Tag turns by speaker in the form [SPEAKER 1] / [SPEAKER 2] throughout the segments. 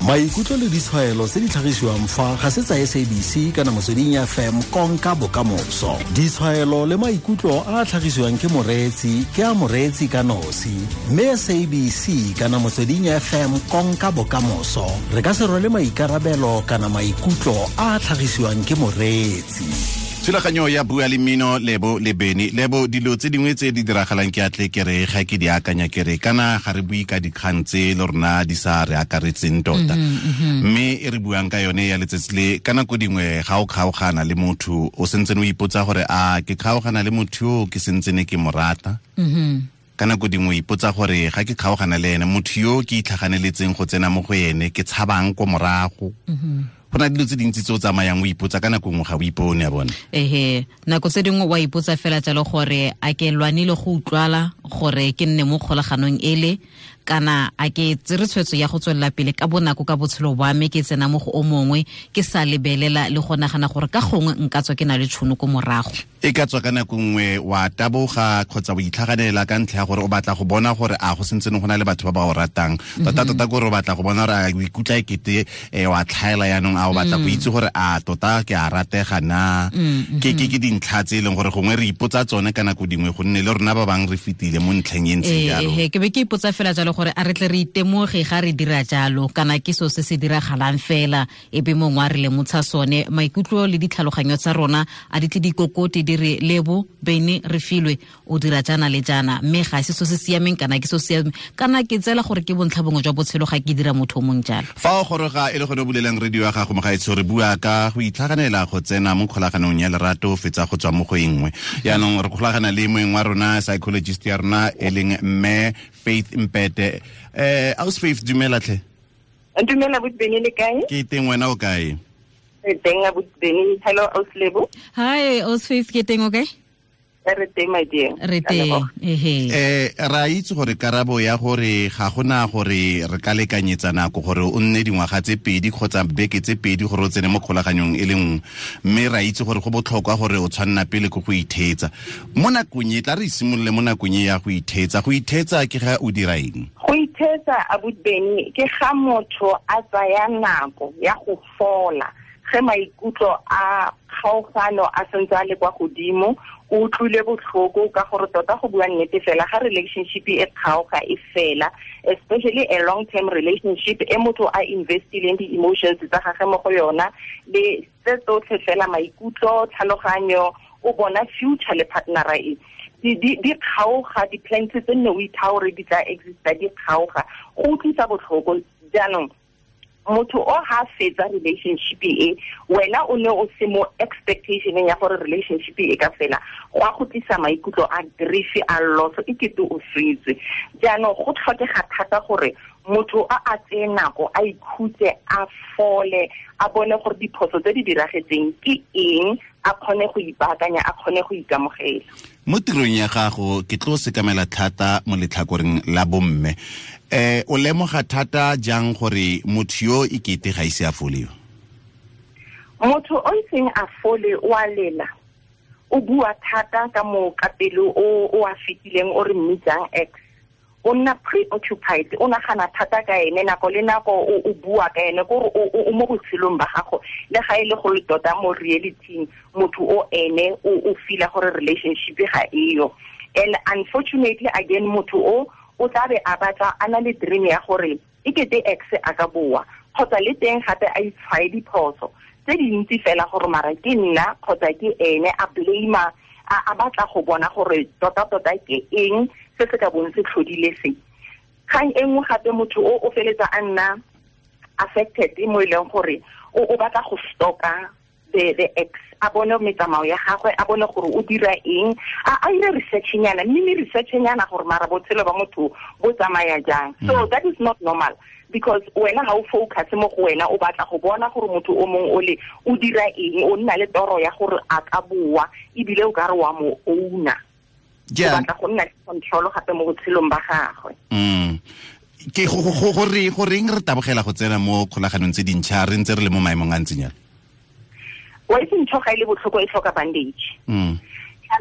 [SPEAKER 1] Maikutlo le ditshwaelo tse di tlhagisiwang fa ga se tsa SABC kana Motsweding FM konka bokamoso. Ditshwaelo le maikutlo a a tlhagisiwang ke moreetsi ke a moreetsi ka nosi, mme SABC kana Motsweding FM konka bokamoso re ka se rwale maikarabelo kana maikutlo a a tlhagisiwang ke moreetsi.
[SPEAKER 2] Thulaganyo ya Bua le Mmino, Lebo le Beny. Lebo, dilo tse dingwe tse di diragalang ke atle ke re ga ke di akanya ke re kana ga re bue ka dikgang tse le rona di sa re akaretseng tota, mme e re buang ka yone ya letsatsi le, ka nako dingwe ga o kgaogana le motho o sentse o ipotsa gore a ke kgaogana le motho yo ke sentse ne ke mo rata. Ka nako dingwe o ipotsa gore ga ke kgaogana le ene motho yo ke itlhaganeletseng go tsena mo go ene ke tshabang ko morago. Go na dilo tse dintsi tse o tsamayang o ipotsa, ka nako nngwe ga o ipone a bone.
[SPEAKER 3] Ehe, nako tse dingwe wa ipotsa fela jalo gore a ke lwanile go utlwala gore ke nne mo kgolaganong ele, kana a ke tsere tshwetso ya go tswelela pele ka bonako ka botshelo ba me, ke tsena mo go o mongwe ke sa lebelela le go nagana gore ka gongwe nka tswa ke na le tšhono ko morago.
[SPEAKER 2] E ka tswa ka nako nngwe wa taboga kgotsa o itlhaganela ka ntlha ya gore o batla go bona gore a go sentse go na le batho ba ba o ratang tota tota, kore o batla go bona gore a o ikutlwa ekete wa tlhaela yaanong, a o batla go itse gore a tota ke a ratega na. Ke dintlha tse e leng gore gongwe re ipotsa tsone ka nako dingwe, gonne le rona ba bangwe re fetile mo ntlheng e ntseng jalo.
[SPEAKER 3] Ke be ke ipotsa fela jalo gore a re tle re itemoge ga re dira jalo, kana ke so se se diragalang fela e be mongwe a re lemotsha sone. Maikutlo le ditlhaloganyo tsa rona a di tle dikokote di re Lebo, Beny, re filwe o dira jaana le jaana, mme ga se so se siameng kana ke so siameng, kana ke tsela gore ke bontlha bongwe jwa botshelo ga ke dira motho o mong jalo.
[SPEAKER 2] Fa o goroga e le gone o bulelang radio ya gago, mogaetsho, re bua ka go itlhaganela go tsena mo kgolaganong ya lerato o fetsa go tswa mo go e nngwe. Yaanong re kgolagana le moeng wa rona, psychologist ya rona e leng mme Faith Mpete. Aus Faith, dumela tlhe.
[SPEAKER 4] Dumela Beny, le kae?
[SPEAKER 2] Ke teng, wena o kae?
[SPEAKER 4] Re teng Beny. Hello Aus Lebo.
[SPEAKER 3] Hi Aus Faith, ke teng, okay?
[SPEAKER 4] Re teng, my dear.
[SPEAKER 3] Re teng, ehe.
[SPEAKER 2] Ra itse gore karabo ya gore ga gona gore re ka lekanyetsa nako gore o nne dingwaga tse 2 kgotsa beke tse 2 gore o tsene mo kgolaganyong e le nngwe, mme ra itse gore go botlhokwa gore o tshwanna pele ko go itheetsa mo nakong e. Tla re simolole mo nakong e ya go itheetsa. Go itheetsa ke ga o dira eng?
[SPEAKER 4] Go itheetsa, abuti Beny, ke ga motho a tsaya nako ya go fola ge maikutlo a kgaogano a sentse a le kwa godimo, o utlwile botlhoko, ka gore tota go bua nnete fela ga relationship e kgaoga e fela, especially a long term relationship e motho a investileng di-emotions tsa gage mo go yona le tse tsotlhe fela, maikutlo, tlhaloganyo, o bona future le partnera e di kgaoga, di-plans tse nne o itha gore di tla exista di kgaoga, go utlwisa botlhoko. Jaanong motho o ha fetsa relationship e, wena o ne o se mo expectationeng ya gore relationship e ka fela, go a go tlisa maikutlo a grief, a loss, e kete o swetswe. Jaanong go tlhokega thata gore motho a a tseye nako, a ikhutse, a fole, a bone gore diphoso tse di diragetseng ke eng, a kgone go ipaakanya, a kgone go ikamogela.
[SPEAKER 2] Mo tirong ya gago ke tlo sekamela thata mo letlhakoreng la bomme. O lemoga thata jang gore motho yo e kete ga ise a fole yo?
[SPEAKER 4] Motho o iseng a fole o a lela, o bua thata ka mo ka pele o a fetileng, o re mmitsang ex, o nna preoccupied, o nagana thata ka ene nako le nako, o bua ka ene, kore o mo botshelong ba gago, le ga e le go le tota mo reality motho o ene o feela gore relationship ga eyo. And unfortunately again, motho o tla be a batla a na le dream ya gore e kete ex a ka boa, kgotsa le teng gape a itshwae diphoso tse dintsi fela gore mara ke nna kgotsa ke ene, a blame, a batla go bona gore tota-tota ke eng se se ka bong se tlhodile se. Kgang e nngwe gape, motho o feletsa a nna affected mo e leng gore o batla go stalka the ex, a bone metsamao ya gagwe, a bone gore o dira eng, a ire research-nyana, mme research-nyana gore mara botshelo ba motho bo tsamaya jang. So that is not normal, because wena ga o focus mo go wena, o batla go bona gore motho o mongwe o le o dira eng, o nna le toro ya gore a ka boa, ebile o ka re wa mo owner, o batla go nna le control gape mo botshelong ba gagwe.
[SPEAKER 2] Ke go reng re tabogela go tsena mo kgolaganong tse dintšha re ntse re le mo maemong a ntseng jalo?
[SPEAKER 4] Wa itse ntho ga e le botlhoko e tlhoka bandage.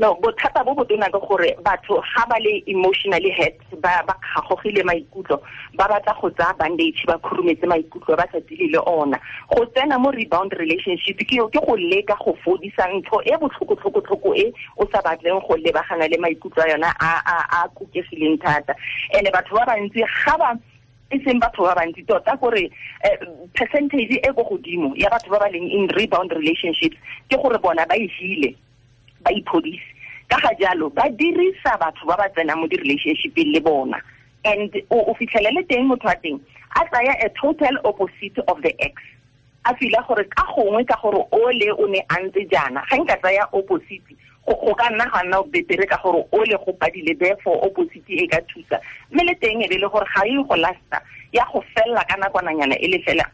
[SPEAKER 4] No, bothata bo botona ke gore batho ga ba le emotionally hurt, ba kgagogile maikutlo, ba batla go tsaya bandage ba khurumetse maikutlo ba sa dile le ona. Go tsena mo rebound relationship ke go leka go fodisa ntho e botlhoko e o sa batleng go lebagana le maikutlo a yona a kukegileng thata. Ene batho ba bantsi ga ba e seng batho ba bantsi tota gore percentage e go godimo ya batho ba ba leng in rebound relationships ke gore bona ba e hile, ba iphodise. Ka ga jalo ba dirisa batho ba ba tsenang mo di-relationshipeng le bona, and o fitlhelele teng motho wa teng a tsaya a total opposite of the ex, a fila gore ka gongwe ka gore ole o ne a ntse jaana, ga nka tsaya opposite go ka nna ga nna betere ka gore ole go padile, therefore opposite e ka thusa. Mme le teng e be le gore ga e go lasta, ya go fella ka nakwananyana e le fela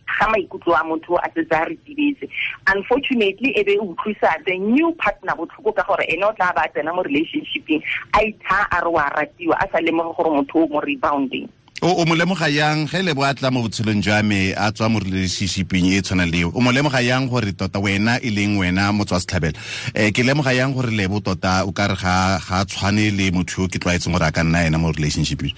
[SPEAKER 4] ga maikutlo a motho a setse a retibetse. Unfortunately e be utlwisa the new partner botlhoko ka gore ene o tla ba tsena mo relationshipeng a itha a re wa ratiwa, a sa lemoge gore motho o mo rebounding.
[SPEAKER 2] O mo lemoga yang ge le bo a tla mo botshelong jwa me a tswa mo relationshipeng e tshwana le eo? O mo lemoga yang gore tota wena e leng wena motswa setlhabelo, ke lemoga yang gore Lebo tota o ka re ga tshwane le motho yo ke tlwaetseng gore a ka nna ena mo relationshipeng?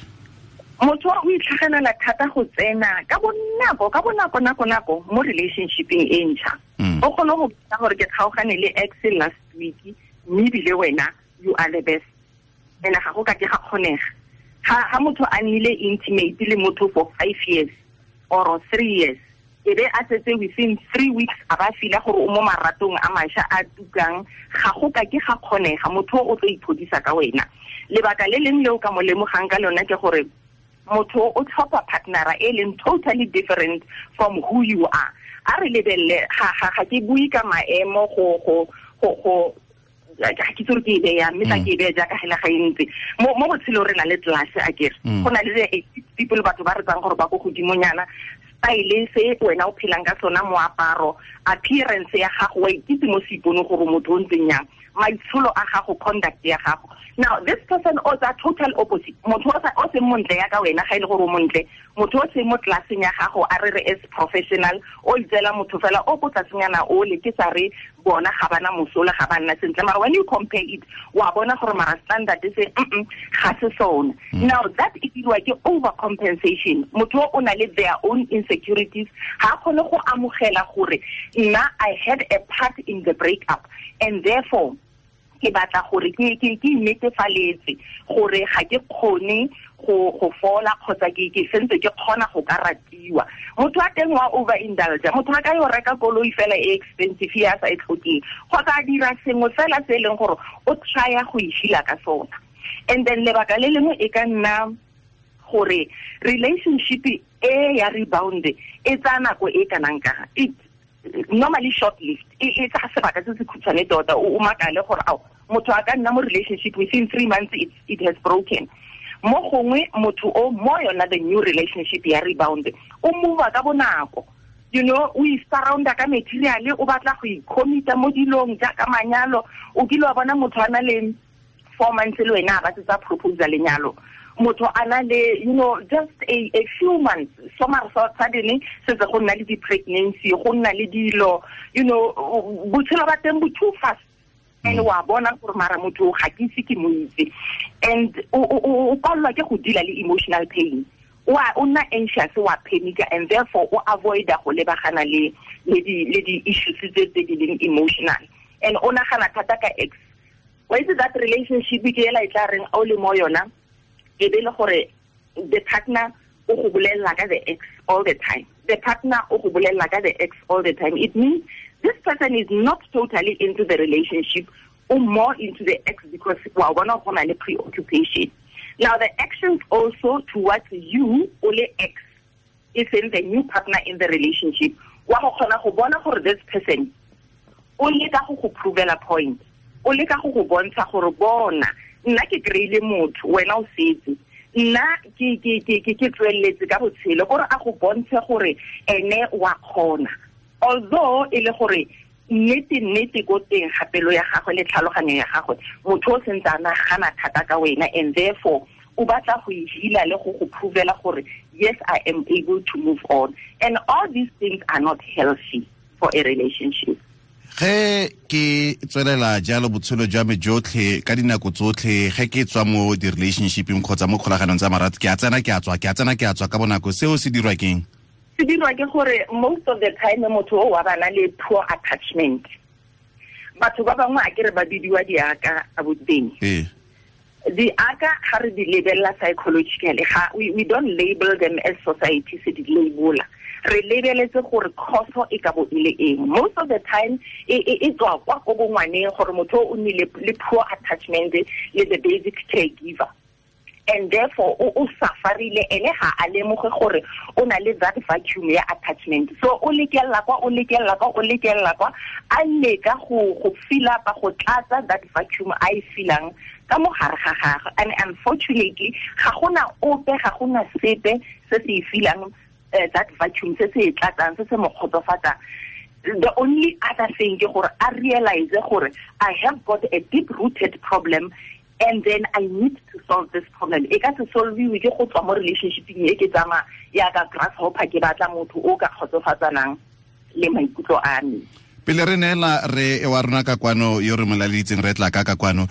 [SPEAKER 4] Motho o itlhaganela thata go tsena ka bonako nako mo relationshipeng e ntšha. O kgone go bona gore ke kgaogane le ex last week, mme ebile wena you are the best, ene ga go ka ke ga kgonega. Ha motho a nnile intimate le motho for 5 years or 3 years, e be a setse within 3 weeks a ba fila gore o mo maratong a mašwa a tukang, ga go ka ke ga kgonega. Motho o tlo iphodisa ka wena. Lebaka le leng le o ka mo lemogang ka lona ke gore motho o tlhopha partnera e leng totally different from who you are. A re lebelele, ga ke bue ka maemo go ga ke tsore ke e beya, mme tla ke e beya jaaka hela ga e ntse. Mo botshelong re na le class a kere. Go na le people batho ba re tsang gore ba ko godimonyana, style se wena o phelang ka sona, moaparo, appearance ya gago, wa ikitse mo seipone gore motho o ntseng yang, maitsholo a gago, conduct ya gago. Now this person o tsa total opposite. Motho o seng montle ya ka wena, ga ile gore o montle, motho o seng mo classeng ya gago, a re re as professional, o itseela motho fela o ko tlasenyana o le ke sa re bona ga bana mosola, ga ba nna sentle. Mara when you compare it, wa bona gore mara standard se ga se sona. Now that e dirwa ke overcompensation. Motho o na le their own insecurities, ha kgone go amogela gore nna I had a part in the breakup, and therefore ke batla gore ke netefaletse gore ga ke kgone go fola kgotsa ke sentse ke kgona go ka ratiwa. Motho a teng wa overindulge, motho a ka yo reka koloi fela e expensive ya sa e tlhokeng, kgotsa a dira sengwe fela se e leng gore o trya go e ka sona. And then lebaka le lengwe e ka nna gore relationship e ya rebound e tsaya nako e kanang ka it normally short lived, e tsaya sebaka se se khutshwane tota. O makale gore ao motho a ka nna mo relationship within 3 months it has broken. Mo gongwe motho o mo yona the new relationship ya rebound o move ka bonako, you know, o surrounda ka material, o batla go icommita mo dilong jaaka manyalo. O kile wa bona motho a na le 4 months le wena a ba tsa proposal lenyalo, motho a na le, you know, just a few months, suddenly setse go nna le di-pregnancy, go nna le dilo, you know, botshelo ba teng bo too fast. And wa bona gore mara motho ga ke ise ke mo itse, and o palelwa ke go deala le emotional pain, o nna anxious, wa panica, and therefore o avoida go lebagana le di-issues tse di leng emotional, and o nagana thata ka ex. Wa itse that relationship ke ela e tla reng o le mo yona, e be le gore the partner o go bolella ka the ex all the time. The partner o go bolella ka the ex all the time. It means this person is not totally into the relationship or more into the ex, because wa bona go na le preoccupation. Now the actions also towards you o le ex is in the new partner in the relationship. Wa go kgona go bona gore this person o leka go go provela point, o leka go go bontsha gore bona nna ke kry-ile motho, wena o setse, nna ke tsweletse ka botshelo, gore a go bontshe gore ene wa kgona. Although e le gore nnete ko teng ga pelo ya gagwe le tlhaloganyo ya gagwe, motho o sentse a nagana thata ka wena, and therefore o batla go e heala le go go provela gore yes, I am able to move on. And all these things are not healthy for a relationship.
[SPEAKER 2] Ge ke tswelela jalo botshelo jwa me jotlhe ka dinako tsotlhe, ge ke tswa mo di-relationshipeng kgotsa mo kgolaganong tsa marato, ke a tsena ke a tswa, ke a tsena ke a tswa ka bonako, seo se dirwa keng?
[SPEAKER 4] Se dirwa ke gore most of the time motho o wa bana le poor attachment. Batho ba bangwe a ke re ba bidiwa diaka a boteng. Diaka ga re di lebella psychologically, ga we don't label them as society se di labeler. Re lebeletse gore khoso e ka bo e le eng. Most of the time e tswa kwa ko bongwaneng gore motho o nnile le poor attachment le the basic caregiver, and therefore o sufferile ene ga a lemoge gore o na le that vacuum ya attachment. So o lekella kwa, o lekella kwa, o lekella kwa, a leka go fill up, go tlatsa that vacuum a e feelang ka mo gare ga gagwe. And unfortunately ga gona ope, ga gona sepe se se e feelang that vacuum se se tlatsang, se se mo kgotsofatsang. The only other thing ke gore a realize gore I have got a deep rooted problem and then I need to solve this problem. E ka se solviwe ke go tswa mo relationshipeng e ke tsamaya ya ka grasshopper ke batla motho o ka kgotsofatsanang le maikutlo a me.
[SPEAKER 2] Pele re neela re wa rona ka kwano yo re molaleditseng re tla ka kwano,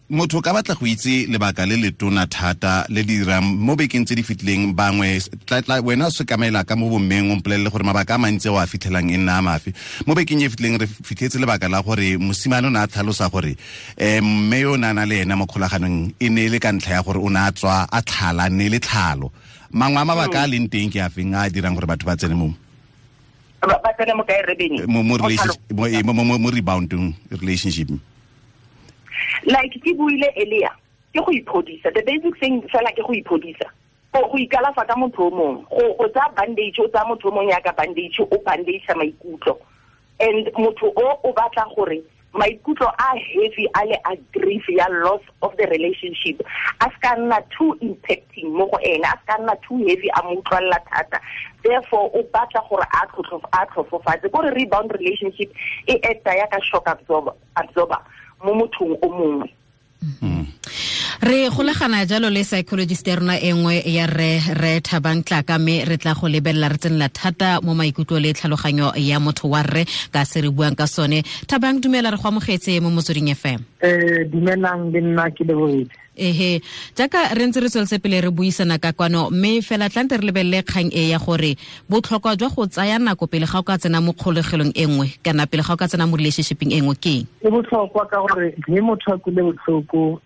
[SPEAKER 2] motho ka batla go itse lebaka le letona thata le le dirang mo bekeng tse di fetileng bangwe tla wena o sekamela ka mo bommeng o mpolelele gore mabaka a mantsi o a fitlhelang e nna a mafe. Mo bekeng e fetileng re fitlhetse lebaka la gore mosimane o ne a tlhalosa gore mme yo o ne a na le ena mo kgolaganong e ne e le ka ntlha ya gore o ne a tswa a tlhala, ne le tlhalo. Mangwe a mabaka a leng teng ke a feng a dirang gore batho ba tsene mo?
[SPEAKER 4] Ba tsene mo kae, Rebene?
[SPEAKER 2] Mo rebounding relationship.
[SPEAKER 4] Like ke buile earlier, ke go iphodisa. The basic thing fela ke go iphodisa. Go ikalafa ka motho o mongwe, go tsaya bandage, o tsaya motho o mongwe yaka bandage, o bandage maikutlo. And motho o batla gore maikutlo a heavy a le a grief ya loss of the relationship a ska nna too impacting mo go ene, a ska nna too heavy a mo utlwalla thata. Therefore o batla gore a tlhofofatse. Kore rebound relationship e acta ya ka shock absorber mo mothong o mongwe.
[SPEAKER 3] Re golagana jalo le psychologist ya rona e nngwe ya re Thabang Tlaka, mme re tla go lebelela re tsenela thata mo maikutlo le tlhaloganyo ya motho wa rre ka se re buang ka sone. Thabang, dumela, re go amogetse mo Motsweding FM.
[SPEAKER 5] Dumelang le nna ke lebohile.
[SPEAKER 3] Ehe, jaaka re ntse re tsweletse pele re buisana ka kwano, mme fela tlante re lebelele kgang e ya gore botlhokwa jwa go tsaya nako pele ga o ka tsena mo kgolegelong e nngwe kana pele ga o ka tsena mo relationshipeng e nngwe ke eng?
[SPEAKER 5] E botlhokwa ka gore ge motho a kule botlhoko,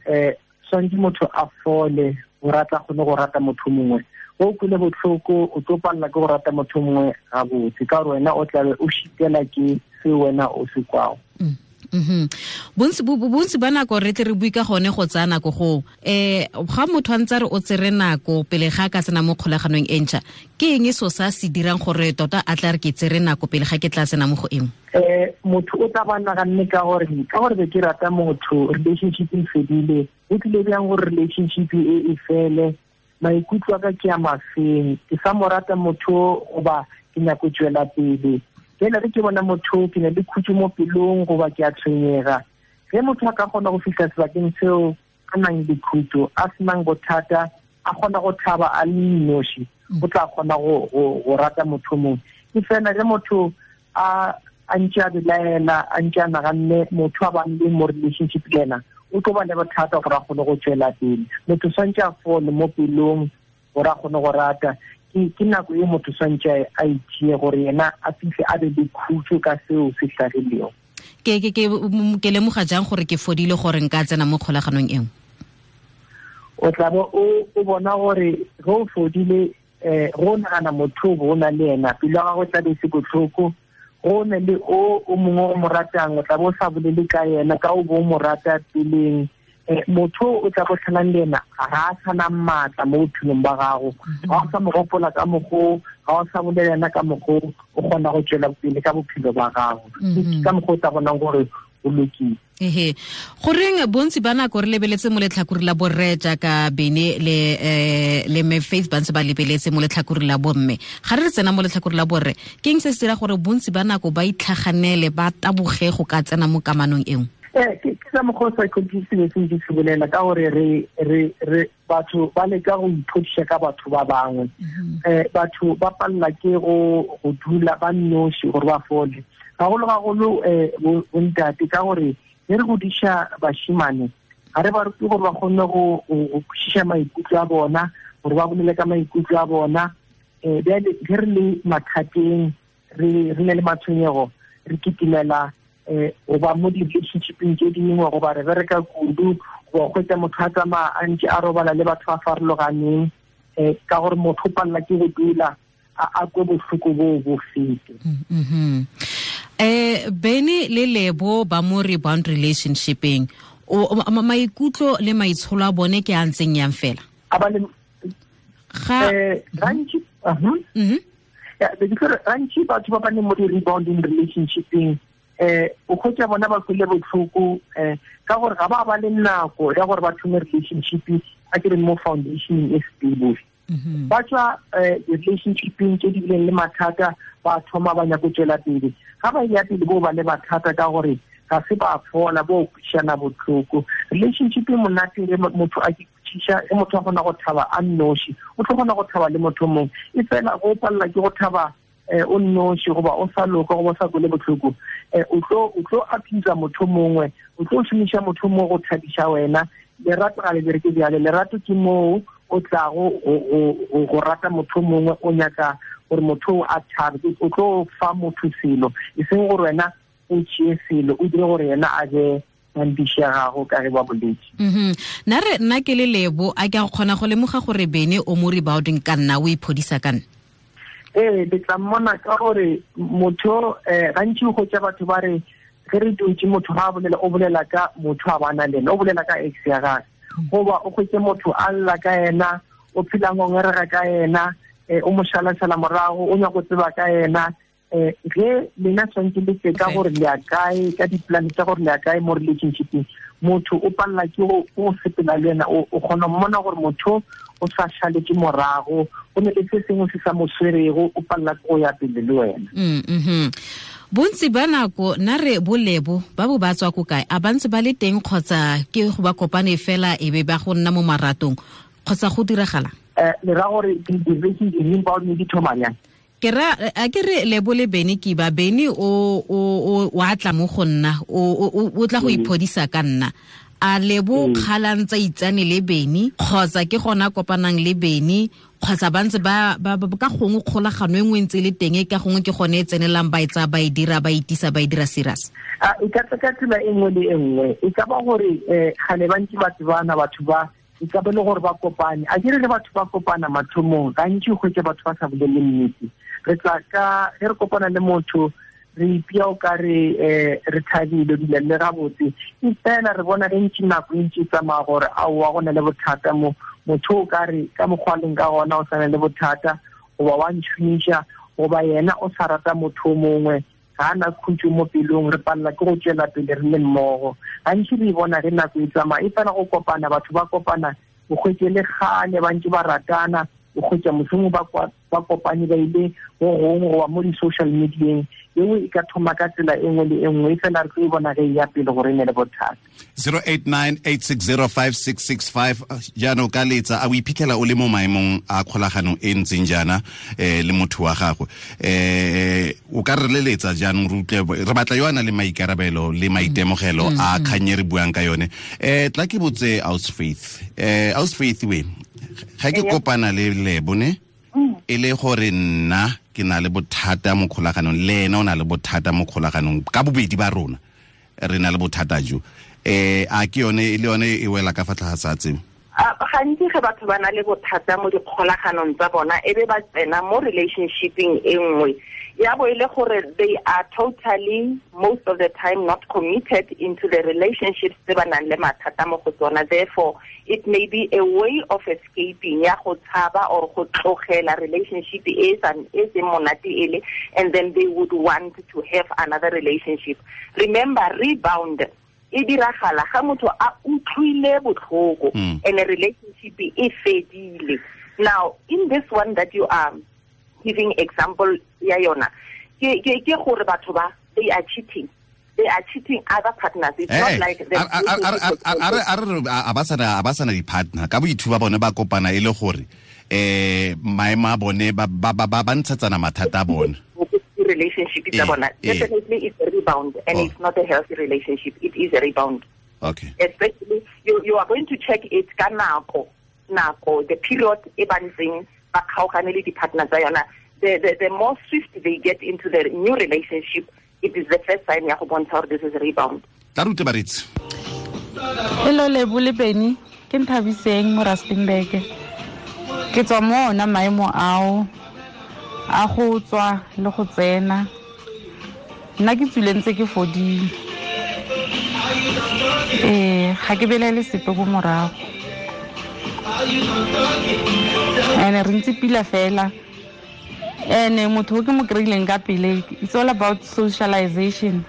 [SPEAKER 5] tshwanetse motho a fole go rata kgone go rata motho mongwe. O kule botlhoko o tlo palela ke go rata motho mongwe gabotse, ka gore wena o tlabe o šitela ke se wena o se kwago.
[SPEAKER 3] Bontsi ba nako re tle re bue ka gone go tsaya nako go ga motho a ntse re o tsere nako pele ga ka tsena mo kgolaganong e ntšha, ke eng so sa se dirang gore tota a tla re ke tsere nako pele ga ke tla tsena mo go eng?
[SPEAKER 5] Motho o tla ba naganne ka gore be ke rata motho, relationship e fedile, o tlile bjang gore relationship e fele, maikutlo a ka ke a mafeng, ke sa mo rata motho goba ke nyako tswela pele. Jale re ke bona motho ke na le khutso mo pelong goba ke a tshwenyega. Ge motho a ka kgona go fihla sebakeng seo a nang le khutso, a senang bothata, a kgona go thaba a le noši, o tla kgona go rata motho mongwe. Ke fela ge motho a ntse a belaela, a ntse a naganne motho a bang le mo relationship le ena, o tlo ba le bothata gore a kgone go tswela pele. Motho swantse a fole mo pelong gore a kgone go rata. Ke nako e motho swantse a itšee gore yena a fihle a be le khutso ka seo se hlagilego.
[SPEAKER 3] Ke lemoga jang gore ke fodile gore nka tsena mo kgolaganong e nngwe?
[SPEAKER 5] O tla bo o bona gore ge o fodile, go nagana motho o na le ena, pelo ya gago tla be se botlhoko. Go ne le o mongwe o mo ratang, o tla bo o sa bolele ka yena ka o bo o mo rata peleng. Motho o tla go tlhalang le ena ga a sana maatla mo bophelong ba gago, ga o sa mo gopola ka mokgwa, ga o sa bolela ena ka mokgwa, o kgona go tswela pele ka bophelo ba gago. Ka mokgwa o tla bonang gore o lokile.
[SPEAKER 3] Ehe, goreng bontsi ba nako re lebeletse mo letlhakore la borre jaaka Bene le me Faith ba ntse ba lebeletse mo letlhakore la bomme, ga re tsena mo letlhakore la borre, ke eng se se dira gore bontsi ba nako ba itlhaganele ba taboge go ka tsena mo kamanong e nngwe?
[SPEAKER 5] Ke ka mokgwa o psychologist se se se bolela ka gore re batho ba leka go iphodiša ka batho ba bangwe. Batho ba palela ke go dula ba noši gore ba fole. Gagolo-gagolo bontate, ka gore ge re godiša bashimane ga re ba rute gore ba kgone go kwešiša maikutlo a bona, gore ba bolele ka maikutlo a bona. Bjale ge re le mathateng, re ne le matshwenyego, re kitimela goba mo di-relationshipeng tše dingwe, goba re bereka kudu, goba kgwetsa motho a tsamaya a ntse a robala le batho ba farologaneng, ka gore motho o palela ke go dula a kwe bohloko boo bo fete.
[SPEAKER 3] Benny le Lebo ba mo rebound relationshipeng, maikutlo le maitsholo a bone ke a ntseng yang fela?
[SPEAKER 5] Gantši batho ba ba leng mo di-rebounding relationshipeng, o kgwetsa bona ba kwele botlhoko, ka gore ga ba le nako ya gore ba thome relationship a ke re mo foundation e stable. Ba tswa relationshipeng tse di bileng le mathata, ba thoma ba nyako tswela pele. Ga ba ya pele bo ba le mathata ka gore ga se ba fola, bo kwešišana botlhoko. Relationship e monate ge motho a ke kwešiša, ge motho a kgona go thaba a nnoši, o tlo kgona go thaba le motho mongwe. E fela go palela ke go thaba o nnoši, goba o sa loka, goba o sa kwele botlhoko, o tlo apisa motho mongwe, o tlo šomiša motho mongwe go thabiša wena. Lerato ga le bereke bjale. Lerato ke moo o tlago go rata motho mongwe, o nyaka gore motho a thabe, o tlo fa motho selo, e seng gore wena o tšee selo, o dire gore yena a be mampiši ya gago ka ge ba boletse.
[SPEAKER 3] Nna re nna ke le Lebo, a ke a kgona go lemoga gore Benny o mo rebounding ka nna, o iphodisa ka nna?
[SPEAKER 5] Ee, le tla mmona ka gore motho gantši o hwetša batho ba re ge re dutše motho ga a bolela, o bolela ka motho a bana le ena, o bolela ka ex ya gagwe, goba o hwetše motho a lla ka yena, o phela ngongerega ka yena, o mo šalašala morago, o nyaka go tseba ka yena. Ge lena tshwanetse le tse ka gore le ya kae, ka di-plan tsa gore le ya kae mo relationshipeng, motho o palela ke go sepela le yena, o kgona mmona gore motho o sa šaletše morago, go ne le se sengwe se sa mo swerego, o palela ke go ya pele le wena.
[SPEAKER 3] Bontsi ba nako nna re bolebo ba bo ba tswa ko kae? A ba ntse ba le teng kgotsa ke go ba kopane fela e be ba go nna mo maratong, kgotsa go diragala?
[SPEAKER 5] Le ra gore di-relationship di thoma jang?
[SPEAKER 3] Ke ra a ke re Lebo le Benny ke ba Benny o a tla mo go nna, o tla go iphodisa ka nna. A Lebo kgalang tsa itsane le Benny, kgotsa ke gona kopanang le Benny, kgotsa ba ntse ba ka gongwe kgolagano e nngwe ntse le teng, ka gongwe ke gone e tsenelang ba e tsaya ba e dira, ba itisa ba e dira serious?
[SPEAKER 5] E ka tla ka tsela e nngwe le e nngwe. E ka ba gore gale ba ntse ba tsebana batho ba, e ka ba le gore ba kopane. A ke re le batho ba kopana mathomong, gantši o hwetša batho ba sa bolele nnete. Re tla ka ge re kopana le motho, re ipea o ka re re thabile, dula le gabotse, e fela re bona ge ntši nako e ntši e tsamaya gore aowa go na le bothata mo. Motho o ka re ka mokgwa leng ka gona o sa na le bothata, goba wa ntšhomiša, goba yena o sa rata motho o mongwe, ga a na khutšo mo pelong, re palela ke go tšwela pele re le mmogo. Gantši re e bona ge nako e tsamaya, e fela go kopana, batho ba kopana, o hwetše le kgale ba ntše ba ratana, o hwetša mohlomongwe ba kopane ba ile go gongwe goba mo di-social medieng, yeo e ka thoma ka tsela e nngwe le e nngwe, e fela re tlo e bona ge e ya pele gore e ne le bothata.
[SPEAKER 2] 0898605665 jaanong ka letsa a o iphitlhela o le mo maemong a kgolagano e ntseng jaana le motho wa gago, o ka re leletsa jaanong re utlwe, re batla yo a nang le maikarabelo le maitemogelo a kgang e re buang ka yone. Tla ke botse Aus Faith, Aus Faith we ga ke kopana le Lebo ne, e le gore nna ke na le bothata mo kgolaganong, le ena o na le bothata mo kgolaganong, ka bobedi ba rona re na le bothata jo, a ke yone le yone e wela ka fa tlase ga tseo?
[SPEAKER 4] Gantsi ge batho ba na le bothata mo dikgolaganong tsa bona, e be ba tsena mo relationshipeng e nngwe, ya bo e le gore they are totally most of the time not committed into the relationships tse ba nang le mathata mo go tsona. Therefore it may be a way of escaping ya go tshaba or go tlogela relationship e seng monate ele, and then they would want to have another relationship. Remember, rebound e diragala ga motho a utlwile botlhoko and a relationship e fedile. Now in this one that you are giving example ya yona, ke gore batho ba they are cheating. They are cheating other partners. It's not like the
[SPEAKER 2] a ba sana di-partner ka boithuba bone ba kopana e le gore maemo a bone ba ntshetsana mathata a bone.
[SPEAKER 4] Relationship tsa bona. Definitely it's a rebound, and it's not a healthy relationship. It is a rebound.
[SPEAKER 2] Okay.
[SPEAKER 4] Especially you are going to check it ka nako, the period e ba ntseng ba kgaogane le di-partner tsa yona. The more swift they get into the new relationship, it is the first sign ya go bontsha gore this is a rebound.
[SPEAKER 2] Tla rute baretsi.
[SPEAKER 6] Hello Lebo le Benny, ke Nthabiseng mo Rustenburg. Ke tswa mo ona maemo ao a go tswa le go tsena. Nna ke tswile ntse ke fodile. Ga ke belaele sepe ko morago. Ene re ntse pila fela. Ene motho o ke mo kry-ileng ka pele, it's all about socialization.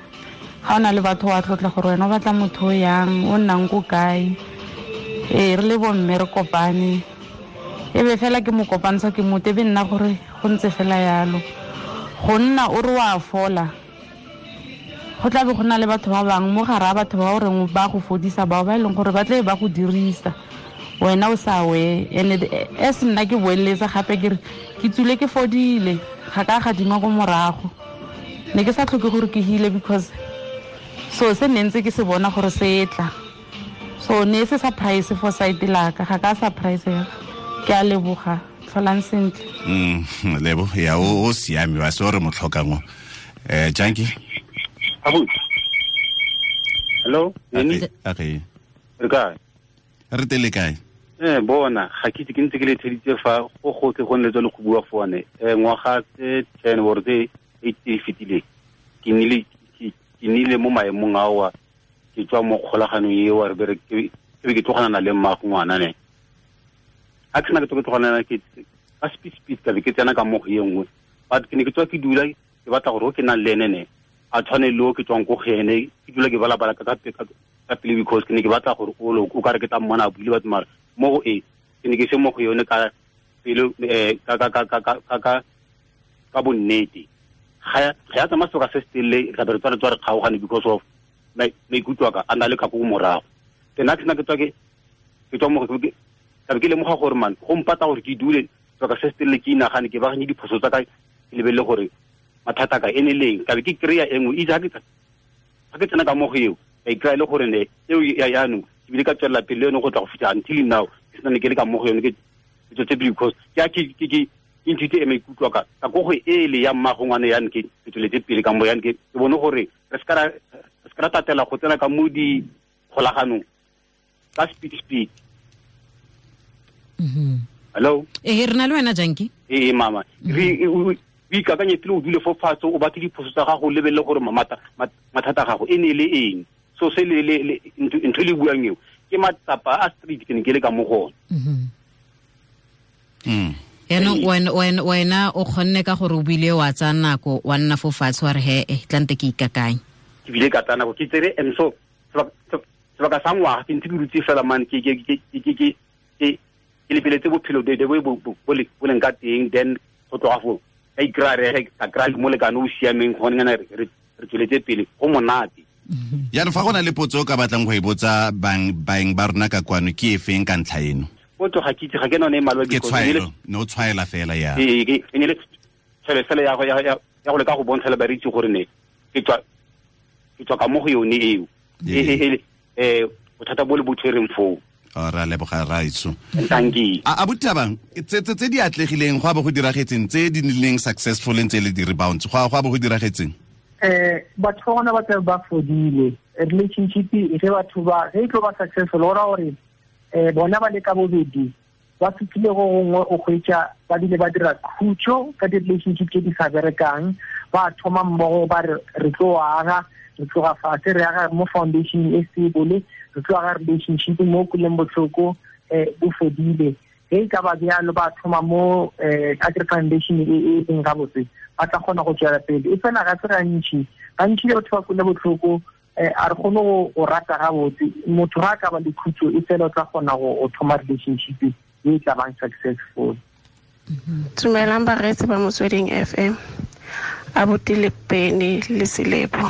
[SPEAKER 6] Ga o na le batho wa tlotla gore wena o batla motho o yang, o nnang ko kae. Re le bomme re kopane. E be fela ke mo kopantsha ke motho, e be nna gore go ntse fela yalo. Go nna o re wa fola, go tla be go na le batho ba bangwe mo gare ga batho ba o reng ba go fodisa bao ba e leng gore ba tle ba go dirisa, wena o sa we. And as nna ke boeletsa gape ke re ke tswile ke fodile, ga ka gadima ko morago. Ne ke sa tlhoke gore ke heale because so se ne ntse ke se bona gore se tla. So ne se surprise for side la ka, ga ka surprise ya. Ke a leboga, tlholang sentle.
[SPEAKER 2] Lebo ya o siame wa se re mo tlhokang o. Janki.
[SPEAKER 7] Abu. Hello, Nini?
[SPEAKER 2] Okay.
[SPEAKER 7] Re kae?
[SPEAKER 2] Re tele kae?
[SPEAKER 7] Bona, ga ke itse ke ntse ke le theditse fa go gotlhe go nne le go bua fone. Ngwaga tse 10 or tse 8 e fetileng. Ke nnile mo maemong ao ke tswa mo kgolaganong eo re bere ke be ke tlogana le mmago ngwana ne. Ha ke sena ke tlogana ke ka speed ka be ke tsena ka mo go e nngwe. But ke ne ke tswa ke dula ke batla gore o ke nang le ene ne a tshwane le o ke tswang ko go ene, ke dula ke balabala ka pele because ke ne ke batla gore o ka re ke tla mmona a buile batho mara mo go e ke ne ke se mo go yone ka pele ka bonnete. Ga ya tsamaya sebaka se se telele ra be re tswa re kgaogane because of maikutlo a ka a na le ka ko morago. Then ha ke sena ke tswa ke tswa mo go ke ka be ke lemoga gore man go mpata gore ke dule sebaka se se telele ke inagane ke baakanye diphoso tsa ka ke lebelele gore mathata ka ene leng ka be ke kry-a e nngwe. Itse ga ke tsena ka mo go eo ka ikry-a le gore ne eo ya jaanong ke bile ka tswelela pele le yone go tla go fitlha until now ke sena ne ke le ka mo go yone ke tswetse pele because ke a ke nthute e maikutlo ka ka ko go ele ya mmago ngwane yane ke tsweletse pele ka mo yane ke bone gore re se ka ra tatela go tsena ka mo dikgolaganong ka speed. Hello?
[SPEAKER 3] Re na le wena Janki?
[SPEAKER 7] Mama. Re o ikakanye pele o dule fo fatshe o batle diphoso tsa gago o lebelele gore mathata a gago e ne le eng. So se le ntho e le buang eo ke matsapa a street ke ne ke le ka mo go ona.
[SPEAKER 3] Yaanong wena o kgonne ka gore o bile wa tsaya nako wa nna fo fatshe wa re he tlante ke ikakanye.
[SPEAKER 7] Ke bile ka tsaya nako ke tsere and so sebaka sa ngwaga ke ntse ke dutse fela man ke lebeletse bophelo bo leng ka teng, then go tloga foo ka ikry-a re ka kry-a molekane o siameng gone ngana re tsweletse pele go monate.
[SPEAKER 2] Jaanong fa go na le potso o ka batlang go e botsa baeng ba rona ka kwano ke e feng ka ntlha eno?
[SPEAKER 7] Potso ga ke itse, ga ke none e malwa
[SPEAKER 2] ke tshwaelo, ne o tshwaela fela ya.
[SPEAKER 7] Ee, e ne le tshwaelo fela ya go leka go bontsha le bareetsi gore ne ke tswa ka mo go yone eo. Bothata bo le bo tshwereng foo.
[SPEAKER 2] Ra leboga raitso.
[SPEAKER 7] Thank you.
[SPEAKER 2] A botabang tse di atlegileng go a bo go diragetseng tse di nnileng successful ntse le di rebounds go a bo go diragetseng?
[SPEAKER 5] Batho ba bona ba tla ba fodile. Relationship e ge batho ba ge e tlo ba successful go ra gore bona ba le ka bobedi ba fitlhile go gongwe o hwetša ba dile ba dira khutšo ka di-relationship tse di sa berekang, ba thoma mmogo ba re tlo aga, re tloga fatshe re aga mo foundation e stable, re tlo aga relationship mo kuleng botlhoko bo fodile. Ge e ka ba bjalo ba thoma mo agri foundation e leng gabotse ba tla kgona go tswela pele. E fela ga se gantši batho ba kule botlhoko a re kgone go rata gabotse. Motho ga a ka ba le khutšo e fela o tla kgona go thoma relationship e tla bang successful.
[SPEAKER 8] Dumelang bareetsi ba Motsweding FM, abuti le Benny le Selebo.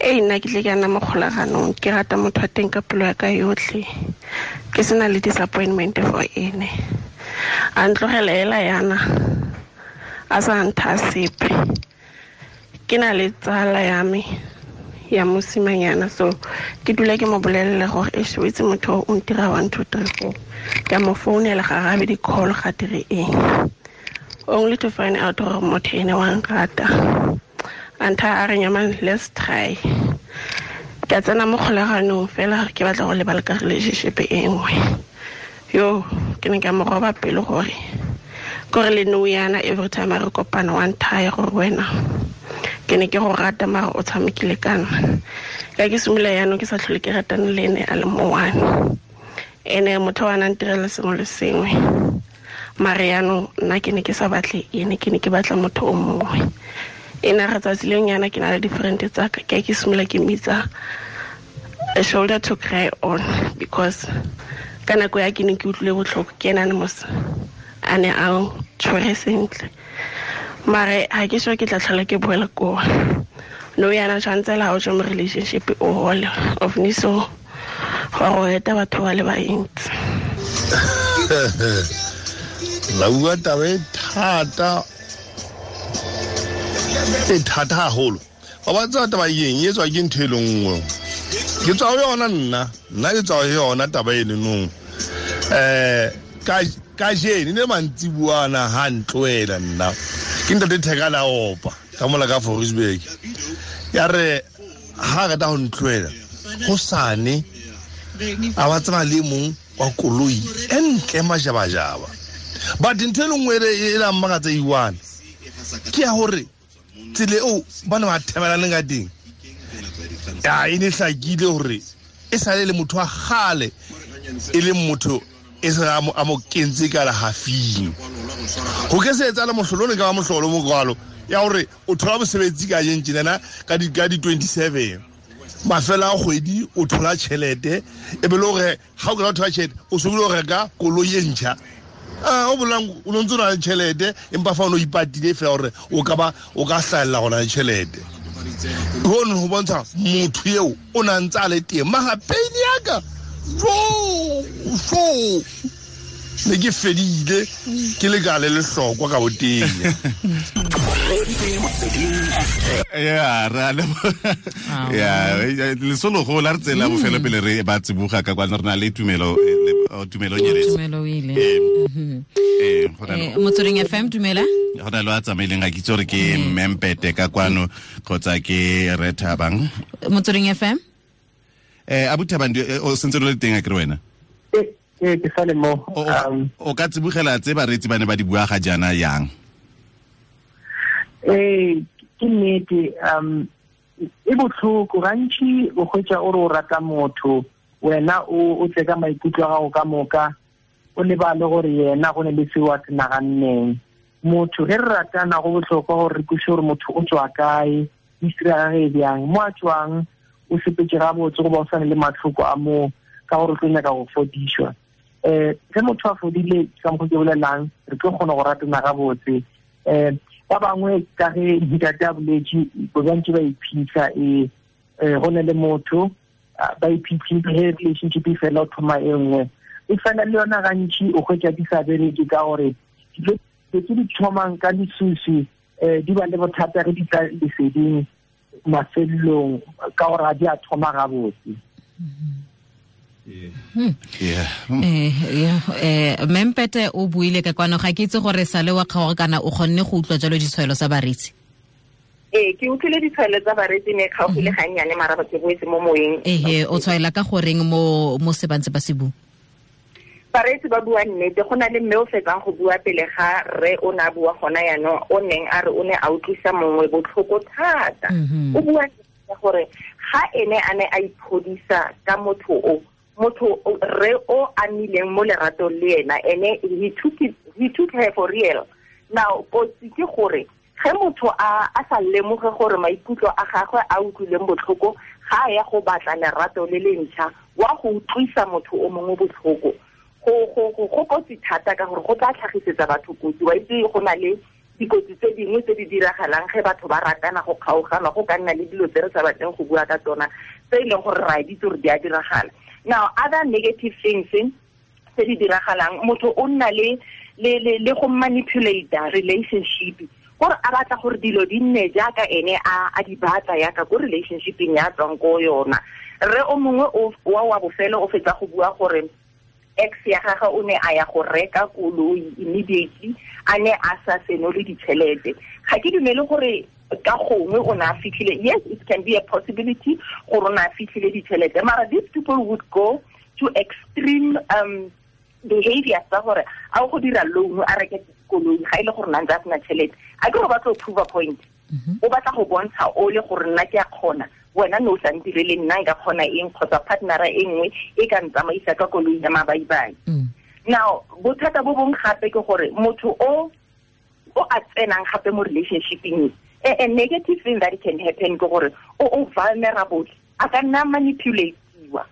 [SPEAKER 8] Nna ke tle ke ana mo kgolaganong, ke rata motho wa teng ka pelo ya ka yotlhe, ke sena le disappointment for ene. A ntlogela hela yana a sa ntha sepe. Ke na le tsala ya me ya mosimanyana, so ke dula ke mo bolelela gore e shwetse motho o ntira 1 2 3 4. Ka mo founela ga arabe di-call, ga dire eng, only to find out gore motho ene wa nrata. Antha a re nyamang, let's try. Ka tsena mo kgolaganong fela ke batla go lebala ka relationship e nngwe. Yo, ke ne ka mo roba pelo gore kore le nou yana every time a re kopana wa nthaya gore wena ke ne ke go rata mara o tshamekile ka nna. Ka ke simolola yaanong ke sa tlhole ke ratane le ene a le mo one. Ene motho wa nang ntirela sengwe le sengwe, mare yaanong nna ke ne ke sa batle ene, ke ne ke batla motho o mongwe. Ene re tsatsi leng yana ke na le different tsa ka, ke simolola ke mmitsa a shoulder to cry on, because ka nako ya ke ne ke utlwile botlhoko ke ena ne mos a ne a tshwere sentle. Mare ha ke sure ke tla tlhola ke boela koo. No yana tshwanetse la o tswa mo relationship o hole of ni so gore o eta batho ba le bantsi.
[SPEAKER 9] La bua taba e thata, e thata haholo. Wa ba tseba taba eng e tswa ke ntho e le nngwe. Ke tswa ho yona nna, nna ke tswa ho yona taba e le nong. Ka jene ne mantsibuana ha ntlohela nna. Ke ntate Theka la opa ka mola ka Fordsburg. Ya re ha re ta ho ntlohela hosane a ba tseba le mong wa koloi e ntle majabajaba. But ntho e le nngwe e la mmakatsa iwane ke ya hore tsela eo ba ne ba thebelaneng ka teng, ya e ne hlakile hore e sale le motho wa kgale, e leng motho e se a mo kentse ka lehafing. Ho ke se etsahale mohlolo ne ka ba mohlolo mo kwalo ya hore o thola mosebetsi ka jeng tjenana ka di 27 mafela a kgwedi o thola tjhelete, e be le hore ha o ka thola tjhelete o so bile o reka koloi e ntjha. O bolang o no ntse o na le tjhelete empa fa o no ipatile fela hore o ka ba o ka hlahella gona le tjhelete. Hono ho bontsha motho eo o na ntse a le teng. Mara pain ya ka fo ne ke fedile ke le ka le lehlokwa ka boteng.
[SPEAKER 2] Ya ra le ya lesolo go la re tsela bofelo pele re ba tsibuga ka kwa re na le tumelo tumelo nyeletse.
[SPEAKER 3] Tumelo ile. Motsweding FM dumela.
[SPEAKER 2] Go na le a tsamaileng ga ke itse gore ke Mmempete ka kwano kgotsa ke Re Thabang.
[SPEAKER 3] Motsweding FM.
[SPEAKER 2] Abu Thabang o sentse le teng a ke re wena?
[SPEAKER 5] Ke sale mo.
[SPEAKER 2] O ka tsibogela tse bareetsi ba ne ba di bua ga jaana yang?
[SPEAKER 5] Ke nnete, e botlhoko gantši o hwetša o re o rata motho, wena o tle ka maikutlo a gago ka moka, o lebale gore yena go ne le seo a se naganneng. Motho ge re ratana go bohlokwa gore re kweše gore motho o tswa kae, history ya gagwe e bjang, mo a tswang o sepetse gabotse goba o sane le matlhoko a moo ka gore o tlo nyaka go fodišwa. Ge motho a fodile ka mokgwa ke bolelang, re tlo kgona go ratana gabotse. Ba bangwe ka ge ntate a boletše ba bantši ba iphitlha, go ne le motho ba iphitlhile ge relationship e fela o thoma e nngwe. E fela le yona gantši o hwetša di sa bereke ka gore dilo tse di thomang ka lesusu di ba le bothata ge di tla leseding mafelong ka gore ga di a thoma gabotse.
[SPEAKER 3] Mmempete o buile ka kwano, ga ke itse gore sale wa kgaoga kana o kgonne go utlwa jalo ditshwaelo tsa bareetsi.
[SPEAKER 4] Ke utlwile ditshwaelo tsa bareetsi ne kgaogile gannyane mara ke boetse mo moyeng.
[SPEAKER 3] O tshwaela ka goreng mo se bantse ba se bua?
[SPEAKER 4] Bareetsi ba bua nnete, go na le mme o fetsang go bua pele ga rre o ne a bua gona yaanong, o neng a re o ne a utlwisa mongwe botlhoko thata. O bua gore ga ene a ne a iphodisa ka motho o, motho re o amileng mo leratong le ena, ene he took her for real. Now kotsi ke gore ge motho a sa lemoge gore maikutlo a gagwe a utlwileng botlhoko, ga a ya go batla lerato le le ntšha, wa go utlwisa motho o mongwe botlhoko. Go kotsi thata ka gore go tla tlhagisetsa batho kotsi. Wa itse go na le dikotsi tse dingwe tse di diragalang ge batho ba ratana go kgaogana, go ka nna le dilo tse re sa batleng go bua ka tsona tse e leng gore ra di itse gore di a diragala. Now other negative things tse di diragalang, motho o nna le go manipulate relationship. Gore a batla gore dilo di nne jaaka ene a di batla yaka ko relationshipeng ya tswang ko yona. Re o mongwe wa bofelo o fetsa go bua gore ex ya gagwe o ne a ya go reka koloi immediately a ne a sa senole ditšhelete. Ga ke dumele gore ka gongwe o ne a fitlhile. Yes, it can be a possibility gore o ne a fitlhile ditšhelete, mara these people would go to extreme behavior tsa gore a o go dira loan a reke koloi ga ile gore nna ntse a sena tšhelete. A ke go batla go prove a point. O batla go bontsha o le gore nna ke a kgona, wena no sa ntirele, nna nka kgona eng kgotsa partnera e nngwe e ka ntsamaisa ka koloi ya mabaibai. Now bothata bo bong gape ke gore motho o a tsenang gape mo relationshipeng, a negative thing that can happen ke gore o vulnerable, a ka nna manipulatiwa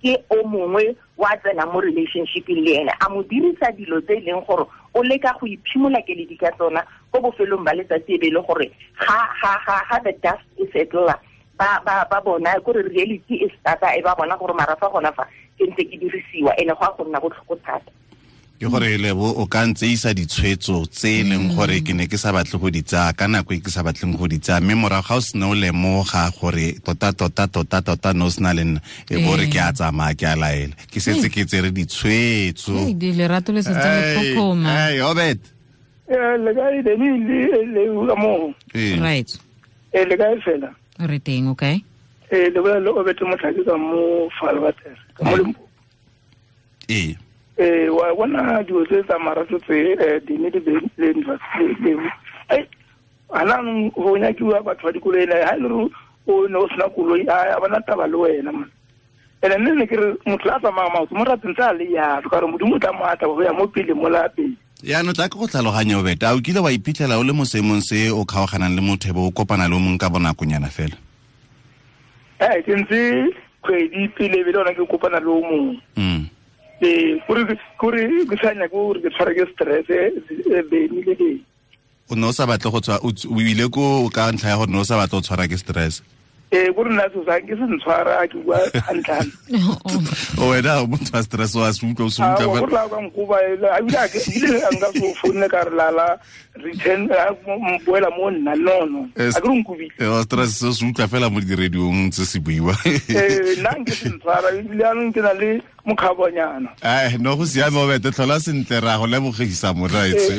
[SPEAKER 4] ke o mongwe wa tsena mo relationshipeng le ene, a mo dirisa dilo tse e leng gore o leka go iphimola keledi ka tsona ko bofelong ba letsatsi e be le gore ha the dust e settle ba bona gore reality e starta e ba bona gore mara fa gona fa ke ntse ke dirisiwa ene go a go nna botlhoko thata.
[SPEAKER 2] Ke gore Lebo o ka ntse isa ditshwetso tse e leng gore ke ne ke sa batle go di tsaya ka nako e ke sa batleng go di tsaya, mme morago ga o sena o lemoga gore tota no sena le nna e bo re ke a tsamaya ke a laela ke setse ke tsere ditshwetso.
[SPEAKER 3] Lerato le setse le phophoma.
[SPEAKER 2] Obet.
[SPEAKER 10] Le kae le ka mo.
[SPEAKER 3] Right.
[SPEAKER 10] Le kae fela?
[SPEAKER 3] Re teng, okay.
[SPEAKER 10] Le bolela le Obet Motlhake ka mo Falwater, ka mo Limpopo. Wa bona dilo tse tsa marato tse di ne di le le ai ana go nyakiwa batho ba dikoloi le ha le o ne o sena koloi a bona taba le wena man. Ene nne ke re motho a tsamaya maoto mo rateng tsa le ya ka re modimo tla mo atla go ya mo pele mo la pele.
[SPEAKER 2] Yaanong tla ke go tlhaloganya Obet, a o kile wa iphitlhela o le mo seemong se o kgaoganang le motho e bo o kopana le o mongwe ka bonakonyana fela?
[SPEAKER 10] Ke ntse kgwedi pele be le ona ke kopana le o mongwe. Kore ke sa nyake gore ke tshware ke stress beni le beni.
[SPEAKER 2] O ne o sa batle go tswa, o ile ko ka ntlha ya gore ne o sa batle go tshwara ke stress?
[SPEAKER 10] Kore nna so sa ke se ntshwara ke bua hantle.
[SPEAKER 2] O wena o motho wa stress wa se utlwa o se utlwa.
[SPEAKER 10] Gore la ka nkoba ebile a ke ebile nka so founne ka re lala return boela mo nna no a ke re nkobile.
[SPEAKER 2] Stress se se utlwa fela mo di-radiong tse se buiwa.
[SPEAKER 10] Nna nke se ntshwara ebile anong ke na le mokgabonyana.
[SPEAKER 2] No go siame Obet, tlhola sentle ra go lebogisa moraetso.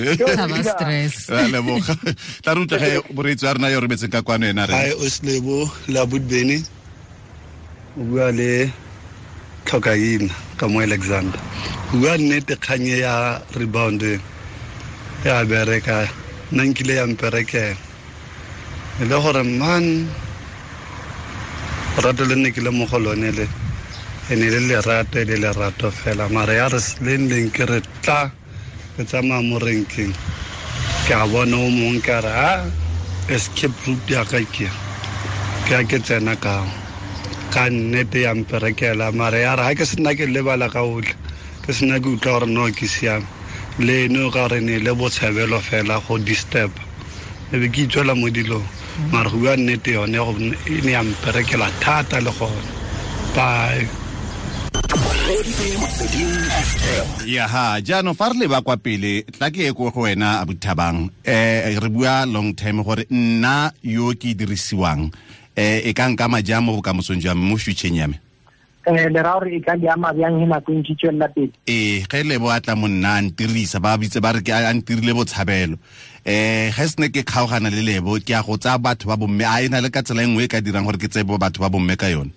[SPEAKER 3] Stress.
[SPEAKER 2] Ra leboga. Tla re utlwe ge moreetsi wa rena yo rometseng ka kwano ena re.
[SPEAKER 11] Hi Oslebo la Budbeni. O bua le Tlhokaina ka mo Alexander. O bua nnete kganye ya rebound ya bereka nna nkile ya mperekela. E le gore man rato le nne ke le mo go lone le ene le lerato e le lerato fela mara ya re leng leng ke re tla ke tsamaya mo renkeng ke a bona o mongwe ka re a escape route ya ka ke a ke tsena ka nnete ya mperekela mara ya re ga ke sena ke lebala ka otlhe ke sena ke utlwa gore no ke siame le eno ka gore ne le botshabelo fela go disturb e be ke itswela mo dilong mara go bua nnete yone e ne ya mperekela thata le gone. Bye.
[SPEAKER 2] Ya ha jaanong fa re leba kwa pele tla ke ye ko go wena Abuthabang, re bua long time gore nna yo ke dirisiwang e ka nkama jang mo bokamosong jwa me mo futureng ya me?
[SPEAKER 5] Le ra gore e ka le ama bjang he nako e ntse tswelela pele?
[SPEAKER 2] Ge Lebo a tla mo nna a ntirisa ba bitse ba re ke a ntirile botshabelo. Ge se ne ke kgaogana le Lebo ke a go tsaya batho ba bomme, a e na le ka tsela e nngwe e ka dirang gore ke tseye batho ba bomme ka yone?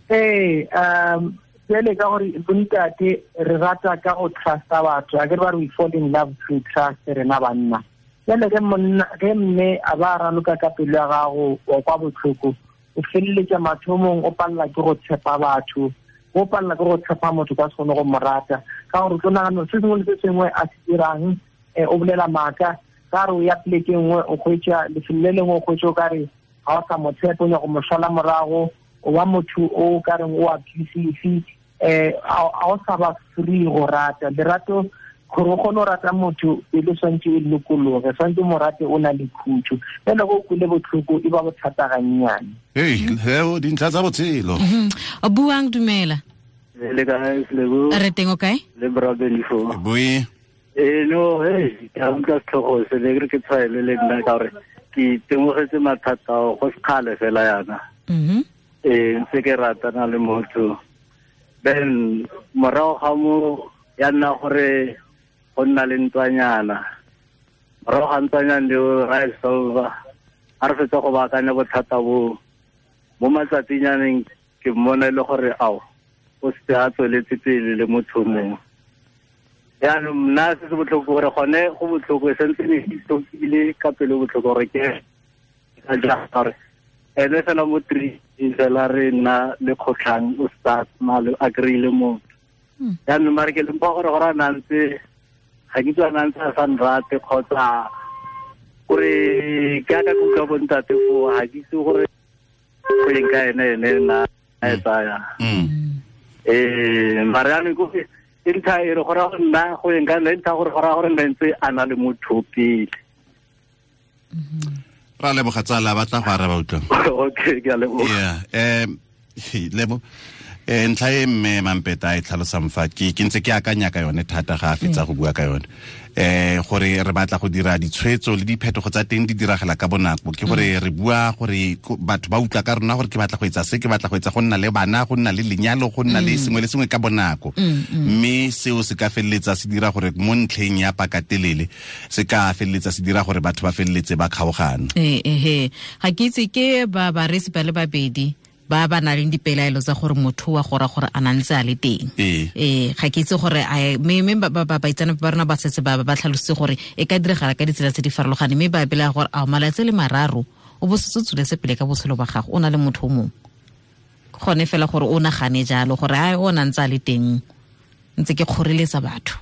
[SPEAKER 5] Jwale ka gore bontate re rata ka go trusta batho, a ke re ba re we fall in love through trust rena banna. Jwale ge monna ge mme a ba raloka ka pelo ya gago wa kwa botlhoko, o feleletsa mathomong o palela ke go tshepa batho, o palela ke go tshepa motho ka se kgone go mo rata ka gore o tlo nagana se sengwe le se sengwe a se dirang, o bolela maaka ka re o ya poleke nngwe o kgwetsa lefelo le lengwe o kgwetsa o ka re ga o sa mo tshepe o nyaka go mo šala morago, o ba motho o ka reng o abusive, a o sa ba free go rata. Lerato gore o kgone go rata motho pele swantse e lokologe, swantse mo rate o na le khutso, fela go kwele botlhoko e ba bothata gannyane.
[SPEAKER 2] Heo dintlha tsa botshelo.
[SPEAKER 3] Buang dumela.
[SPEAKER 12] Le kae Selebo?
[SPEAKER 3] Re teng o kae?
[SPEAKER 12] Le bra Benifo.
[SPEAKER 2] Boi.
[SPEAKER 12] No, ke a utlwa setlhogo se le ke re ke tshwaele le nna ka gore Ke itemogetse mathata ao go sekgale fela yana. Ee, ntse ke ratana le motho. Then morago ga mo ya nna gore go nna le ntwanyana. Morago ga ntwanyana leo ra e solva. Ha re fetsa go baakanya bothata bo mo matsatsing ke mmona e le gore ao o se a tsweletse pele le motho mongwe. Jaanong nna se se botlhoko gore gone go botlhoko e santse ne ke tlhokile ka pelo botlhoko gore ke ka jang gore ene fela mo 3 fela re nna le kgotlhang o start male a kry-ile motho. Jaanong mare ke lempa gore gore a na ntse ga ke itse a na ntse a sa nrate kgotsa gore ke aka ke utlwa bontate foo ga ke itse gore go eng ka ene nna a e tsaya. Mare jaanong ko e ntlha e re go raya gore nna go eng ka nna e ntlha gore go raya gore nna ntse a na le motho pele.
[SPEAKER 2] Ra leboga tsala ba tla go araba utlwa.
[SPEAKER 12] Okay, ke a leboga.
[SPEAKER 2] Yeah, lebo ntlha e mme Mampeta e tlhalosang fa ke ntse ke akanya ka yone thata ga a fetsa go bua ka yone. Gore re batla go dira ditshwetso le diphetogo tsa teng di diragala ka bonako ke gore re bua gore batho ba utlwa ka rona gore ke batla go etsa se ke batla go etsa go nna le bana go nna le lenyalo go nna le sengwe le sengwe ka bonako mme seo se ka feleletsa se dira gore mo ntlheng ya pakatelele se ka feleletsa se dira gore batho ba feleletse ba kgaogana.
[SPEAKER 3] Ga ke itse ke ba baresi ba le babedi ba ba nang le dipelaelo tsa gore motho wa gora gore a nantse a le teng. Ga ke itse gore mme ba baitsanape ba rona ba setse ba ba tlhalositse gore e ka diragala ka ditsela tse di farologaneng mme ba belaela gore a malatsi le mararo o bo setse o tsweletse pele ka botshelo ba gago o na le motho o mongwe. Gone fela gore o nagane jalo gore a o nantse a le teng ntse ke kgoreletsa batho.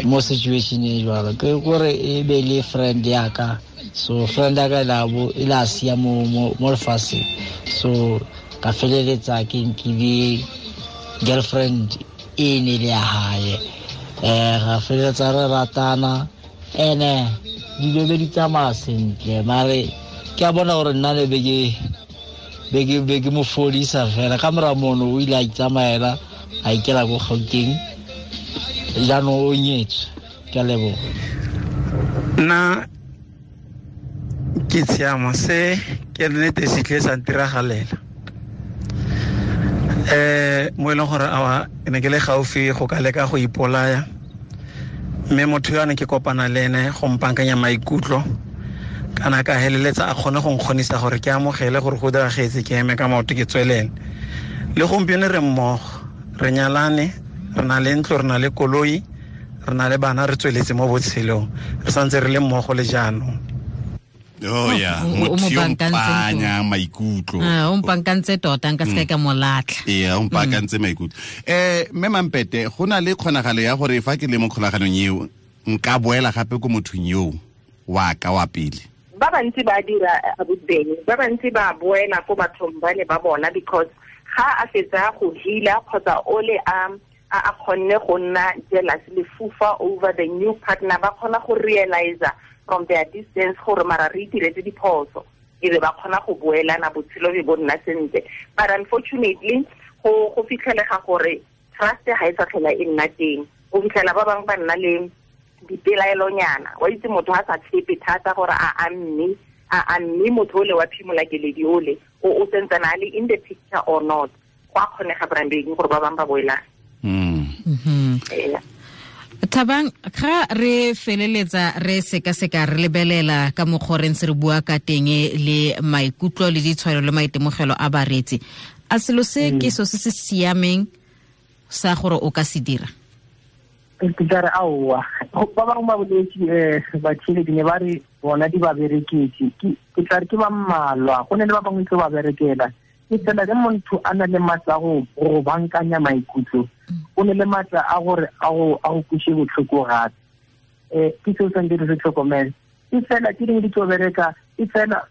[SPEAKER 13] Mo situation e jwalo ke gore e be le friend ya ka, so friend ya ka e la sia mo lefatsheng, so ka feleletsa ke nkile girlfriend e ne le ya hae. Ga feleletsa re ratana ene dilo be di tsamaya sentle mare ke a bona gore nna le be ke mo fodisa fela ka mora mono o ile a itsamaela a ikela ko Gauteng jaanong o nyetswe. Ke a leboga.
[SPEAKER 14] Nna ke tshiamo se ke nnete se tle sa ntiragalela. Mo e leng gore awa ne ke le gaufi go ka leka go ipolaya mme motho yo a ne ke kopana le ene go mpankanya maikutlo kana ka heleletsa a kgone go nkgonisa gore ke amogele gore go diragetse ke eme ka maoto ke tswelele. Le gompieno re mmogo re nyalane re na le ntlo re na le koloi re na le bana re tsweletse mo botshelong re santse re le mmogo le jaanong.
[SPEAKER 2] Oh yeah, motho yo mpanya maikutlo.
[SPEAKER 3] O mpankantse tota nka se ka molatlha.
[SPEAKER 2] Ee, o mpankantse maikutlo. Mme Mampete go na le kgonagalo ya gore fa ke le mo kgolaganong eo nka boela gape ko mothong yo wa ka wa pele.
[SPEAKER 4] Ba bantsi ba dira abuteng, ba bantsi ba boela ko bathong ba ne ba bona because ga a fetsa go heala kgotsa ole a kgonne go nna jealous le fufa over the new partner ba kgona go realize from their distance gore mara re itiretse diphoso e be ba kgona go boelana botshelo be bo nna sentle. But unfortunately go fitlhelega gore trust ga e sa tlhola e nna teng. O fitlhela ba bangwe ba nna le dipelaelonyana wa itse motho a sa tshepe thata gore a mme motho ole wa phimola keledi ole o sentsana a le in the picture or not. Go a kgonega branding gore ba bangwe ba boelana.
[SPEAKER 3] Thabang, ga re feleletsa re sekaseka re lebelela ka mokgwa re ntse re bua ka teng le maikutlo le ditshwaelo le maitemogelo a bareetsi, a selo se ke so se se siameng sa gore o ka se dira?
[SPEAKER 5] Ke tla re aowa ba bangwe ba boletse batšheledi ne ba re bona di ba bereketse ke tla re ke ba mmalwa go ne le ba bangwe tlo ba berekela. Ke tsela ge motho a na le maatla a go bankanya maikutlo o ne le maatla a gore a go kweshe botlhoko gape. Ke seo santse re se tlhokomele. E fela ke dingwe di tlo bereka e fela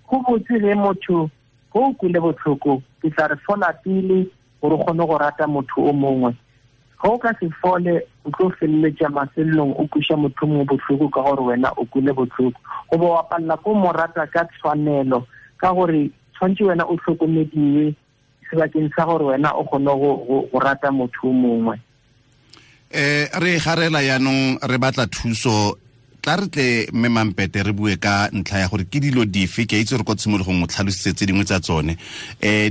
[SPEAKER 5] go botse ge motho go o kwele botlhoko ke tla re fola pele gore o kgone go rata motho o mongwe. Ga o ka se fole o tlo feleletša mafelelong o kweša motho mongwe botlhoko ka gore wena o kwele botlhoko goba wa palela ko mo rata ka tshwanelo ka gore tshwanetse wena o tlhokomediwe sebakeng sa gore wena o kgone go rata motho o mongwe.
[SPEAKER 2] Re garela yaanong re batla thuso Tla re tle mme Mampete re bue ka ntlha ya gore ke dilo dife, ke a itse gore ko tshimologong o tlhalositse tse dingwe tsa tsone,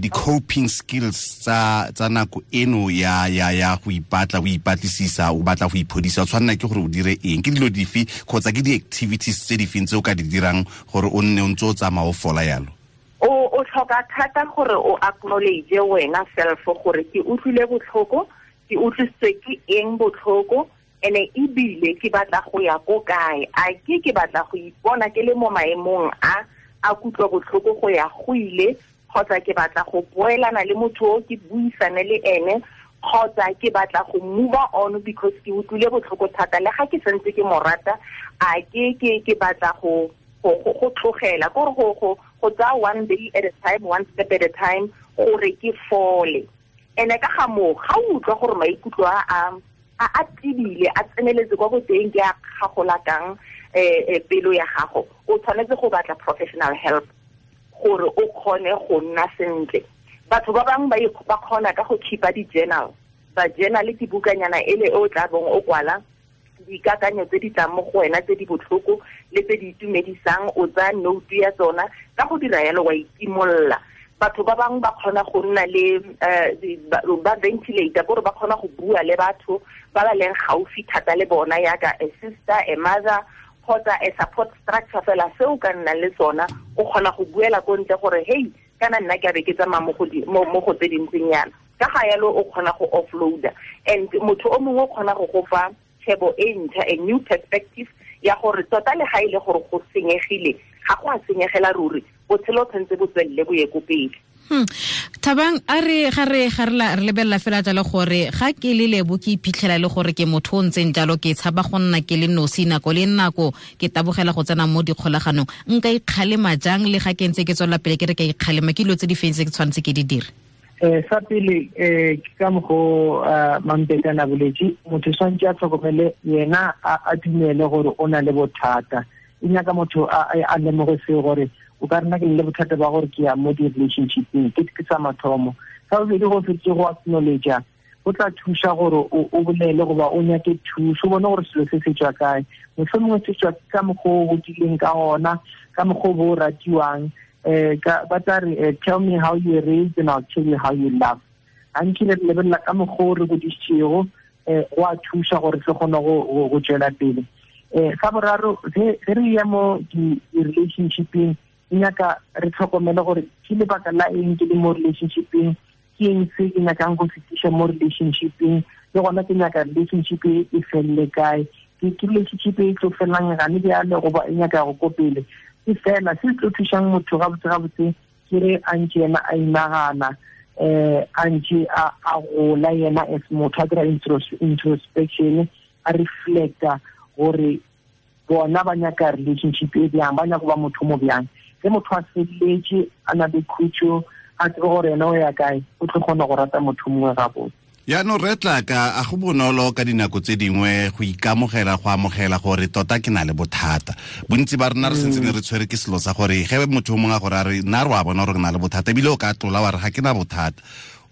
[SPEAKER 2] di-coping skills tsa nako eno ya go ipatla, o ipatlisisa, o batla go iphodisa, o tshwanela ke gore o dire eng, ke dilo dife kgotsa ke di-activities tse di feng tse o ka di dirang gore o nne o ntse o tsamaya o fola yalo?
[SPEAKER 4] O tlhoka thata gore o acknowledge wena self gore ke utlwile botlhoko, ke utlwisitswe ke eng botlhoko, ene ebile ke batla go ya ko kae, a ke batla go ipona ke le mo maemong a kutlwa botlhoko go ya go ile, kgotsa ke batla go boelana le motho o ke buisane le ene, kgotsa ke batla go move on because ke utlwile botlhoko thata le ga ke santse ke mo rata, a ke batla go tlogela, gore go tsaya one day at a time, one step at a time, gore ke fole. Ene ka ga moo, ga o utlwa gore maikutlo a tibile, a tseneletse kwa boteng, ke a kgagolakang pelo ya gago, o tshwanetse go batla professional help gore o kgone go nna sentle. Batho ba bangwe ba kgona ka go keepa di-journal, ba journal ke bukanyana ele e o tla bong o kwala dikakanyo tse di tlang mo go wena tse di botlhoko le tse di itumedisang, o tsaya note ya tsona, ka go dira yalo wa itimolla. Batho ba bangwe ba kgona go nna le ba ventilator, gore ba kgona go bua le batho ba ba leng gaufi thata le bona, yaka a sister, a mother, kgotsa a support structure fela se o ka nnang le sona, o kgona go buela ko ntle gore hey, kana nna ke a be ke tsamaya mo go tse dintseng yana. Ka ga yalo o kgona go offloada, and motho o mongwe o kgona go go fa tshebo e ntšha, a new perspective ya gore tota le ga ile gore go senyegile, ga go a senyegela ruri, botshelo tshwanetse bo tswelele bo ye ko pele.
[SPEAKER 3] Thabang, a re ga re lebelela fela jalo gore ga ke le Lebo ke iphitlhela le gore ke motho o ntseng jalo, ke tshaba go nna ke le nosi nako le nako, ke tabogela go tsena mo dikgolaganong, nka ikgalema jang le ga ke ntse ke tswelela pele ke re ka ikgalema, ke dilo tse di feng tse ke tshwanetse ke di dire?
[SPEAKER 5] Sa pele, ke ka mokgo Mampete a boletse, motho tshwanetse a tlhokomele yena, a dumele gore o na le bothata. E nyaka motho a lemoge seo gore o ka rena ke le bothata ba gore ke ya mo di-relationshipeng, ke sa mathomo. Sa bobedi, go fetse go acknowledge, go tla thusa gore o bolele goba o nyake thuso, o bone gore selo se se tswa kae, mohlomongwe se tswa ka mokgwa o godileng ka ona, ka mokgwa o bo o ratiwang. Ba tla re, tell me how you were raised and I'll tell you how you love. Gantši re lebelela ka mokgwa o re godisitšego, go a thusa gore re kgone go tswela pele. Sa boraro, ge re ya mo di-relationshipeng, e nyaka re tlhokomele gore ke lebaka la eng ke le mo relationshipeng, ke eng se ke nyakang go fetiša mo relationshipeng, le gona ke nyaka relationship e felele kae, ke relationship e tlo felang gane bjale goba e nyaka go ko pele. Ke fela se tlo thušang motho gabotse ke re a ntše yena a inagana, a ntše a gola yena as motho, a dira introspection, a reflecta gore bona ba nyaka relationship e bjang, ba nyaka go ba motho mo bjang. Ge motho a feletse, a na le khutšo, a tsebe gore yena o ya kae, o tlo kgona go rata motho mongwe gabotse.
[SPEAKER 2] Yaanong re tla ka a go bonolo ka dinako tse dingwe go ikamogela, go amogela gore tota ke na le bothata. Bontsi ba rena re sentse ne re tshwere ke selo sa gore ge motho o mongwe a gore a re nna re wa bona gore ke na le bothata, ebile o ka tlola wa re ga ke na bothata.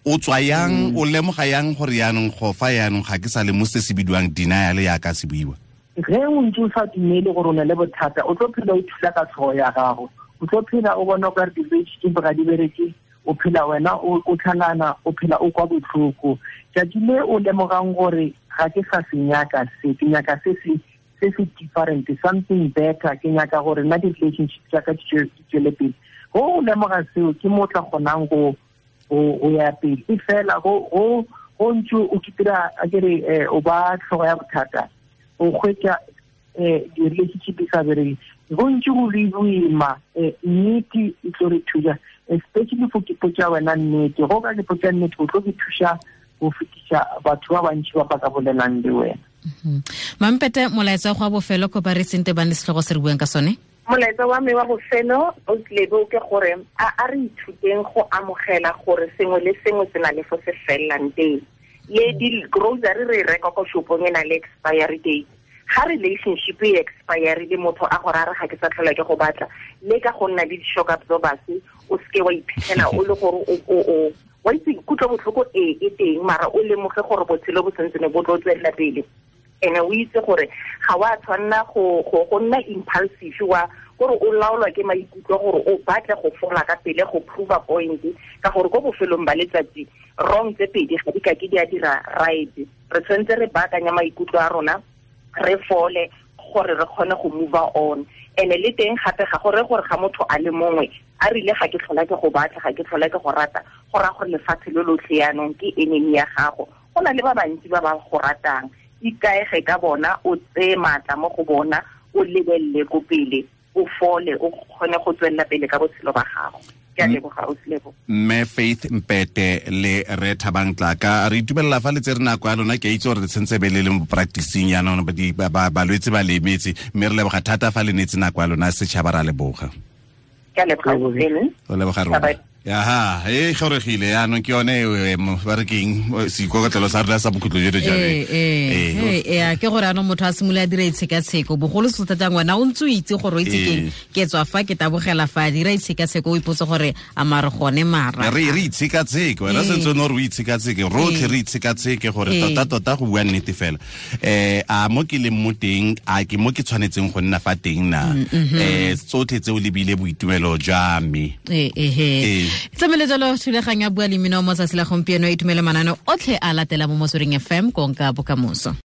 [SPEAKER 2] O tswa yang, o lemoga yang gore yaanong go fa yaanong ga ke sa le mo se se bidiwang denial yaka se buiwa?
[SPEAKER 5] Ge o ntse o sa dumele gore o na le bothata, o tlo phela o thula ka tlhogo ya gago, o tlo phela o bona o ka re di-relationship ga di bereke, o phela wena o tlhalana, o phela o kwa botlhoko. Tšatši le o lemogang gore ga ke sa se nyaka se, ke nyaka se se different, something better, ke nyaka gore nna di-relationship tša ka di tswele pele. Go o lemoga seo, ke mo o tla kgonang go ya pele. E fela go ntse o kitira, a ke re o ba tlhogo ya bothata, o hwetša di-relationship di sa bereke, go ntse go le boima. Nnete e tlo re thuša, especially for ke potša wena nnete. Go ka ke potša nnete, o tlo ke thuša go fetiša batho ba bantši ba ba ka bolelang le wena.
[SPEAKER 3] Mampete, molaetsa wa bofelo ko ba re sente ba ne setlhogo se re buang ka sone?
[SPEAKER 4] Molaetsa wa me wa bofelo o tlebe ke gore a re ithuteng go amogela gore sengwe le sengwe se na le fo se fellang teng. Le di-grocery re reka ko shopong e na le expiry date. Ga relationship e expire le motho a gore a re ga ke sa tlhola ke go batla, le ka go nna le di-shock absorbers, o seke wa iphitlhela o le gore o wa itse kutlo botlhoko e teng, mara o lemoge gore botshelo bo sentse ne bo tlo tswelela pele. Ene o itse gore ga wa tshwanna go nna impulsive wa gore o laolwa ke maikutlo gore o batle go fola ka pele go prove a point, ka gore ko bofelong ba letsatsi wrong tse pedi ga di ka ke di a dira right. Re tshwanetse re baakanya maikutlo a rona, re fole gore re kgone go move on. Ene le teng gape ga gore ga motho a le mongwe a rile ga ke tlhola ke go batla, ga ke tlhola ke go rata, go raya gore lefatshe lo lotlhe yaanong ke enemy ya gago. Go na le ba bantsi ba ba go ratang, ikaege ka bona, o tseye maatla mo go bona, o lebelele ko pele, o fole, o kgone go tswelela pele ka botshelo ba gago. Ke a leboga, Ausi Lebo.
[SPEAKER 2] Mme Faith Mpete le Re Thabang Tlaka, re itumelela fa le tsere nako ya lona. Ke a itse gore le tshwanetse be le le mo practicing jaanong, balwetse ba le emetse, mme re leboga thata fa le neetse nako ya lona. Setšhaba ra leboga.
[SPEAKER 4] Ke a leboga, Ausi.
[SPEAKER 2] O leboga rona. Aha, e goregile yaanong ke yone ba re keng seikokotlelo sa rona sa bokhutlo jo jalo.
[SPEAKER 3] Ee, ke gore anong motho a simolola a dira itshekatsheko, bogolo se thata ngwana o ntse o itse gore o itse keng, ke tswa fa ke tabogela fa, dira itshekatsheko, o ipotse gore a mare gone mara.
[SPEAKER 2] Re itshekatsheke, wena sentse o ne gore o itshekatsheke, rotlhe re itshekatsheke gore tota go bua nnete fela. A mo ke leng mo teng, a ke mo ke tshwanetseng go nna fa teng na? Tsotlhe tseo lebile boitumelo jwa me.
[SPEAKER 3] Ee. Tsamele jalo thulaganyo ya Bua le Mmino mo tsatsi la gompieno, e itumele manane otlhe a latela mo Motsweding FM, konka bokamoso.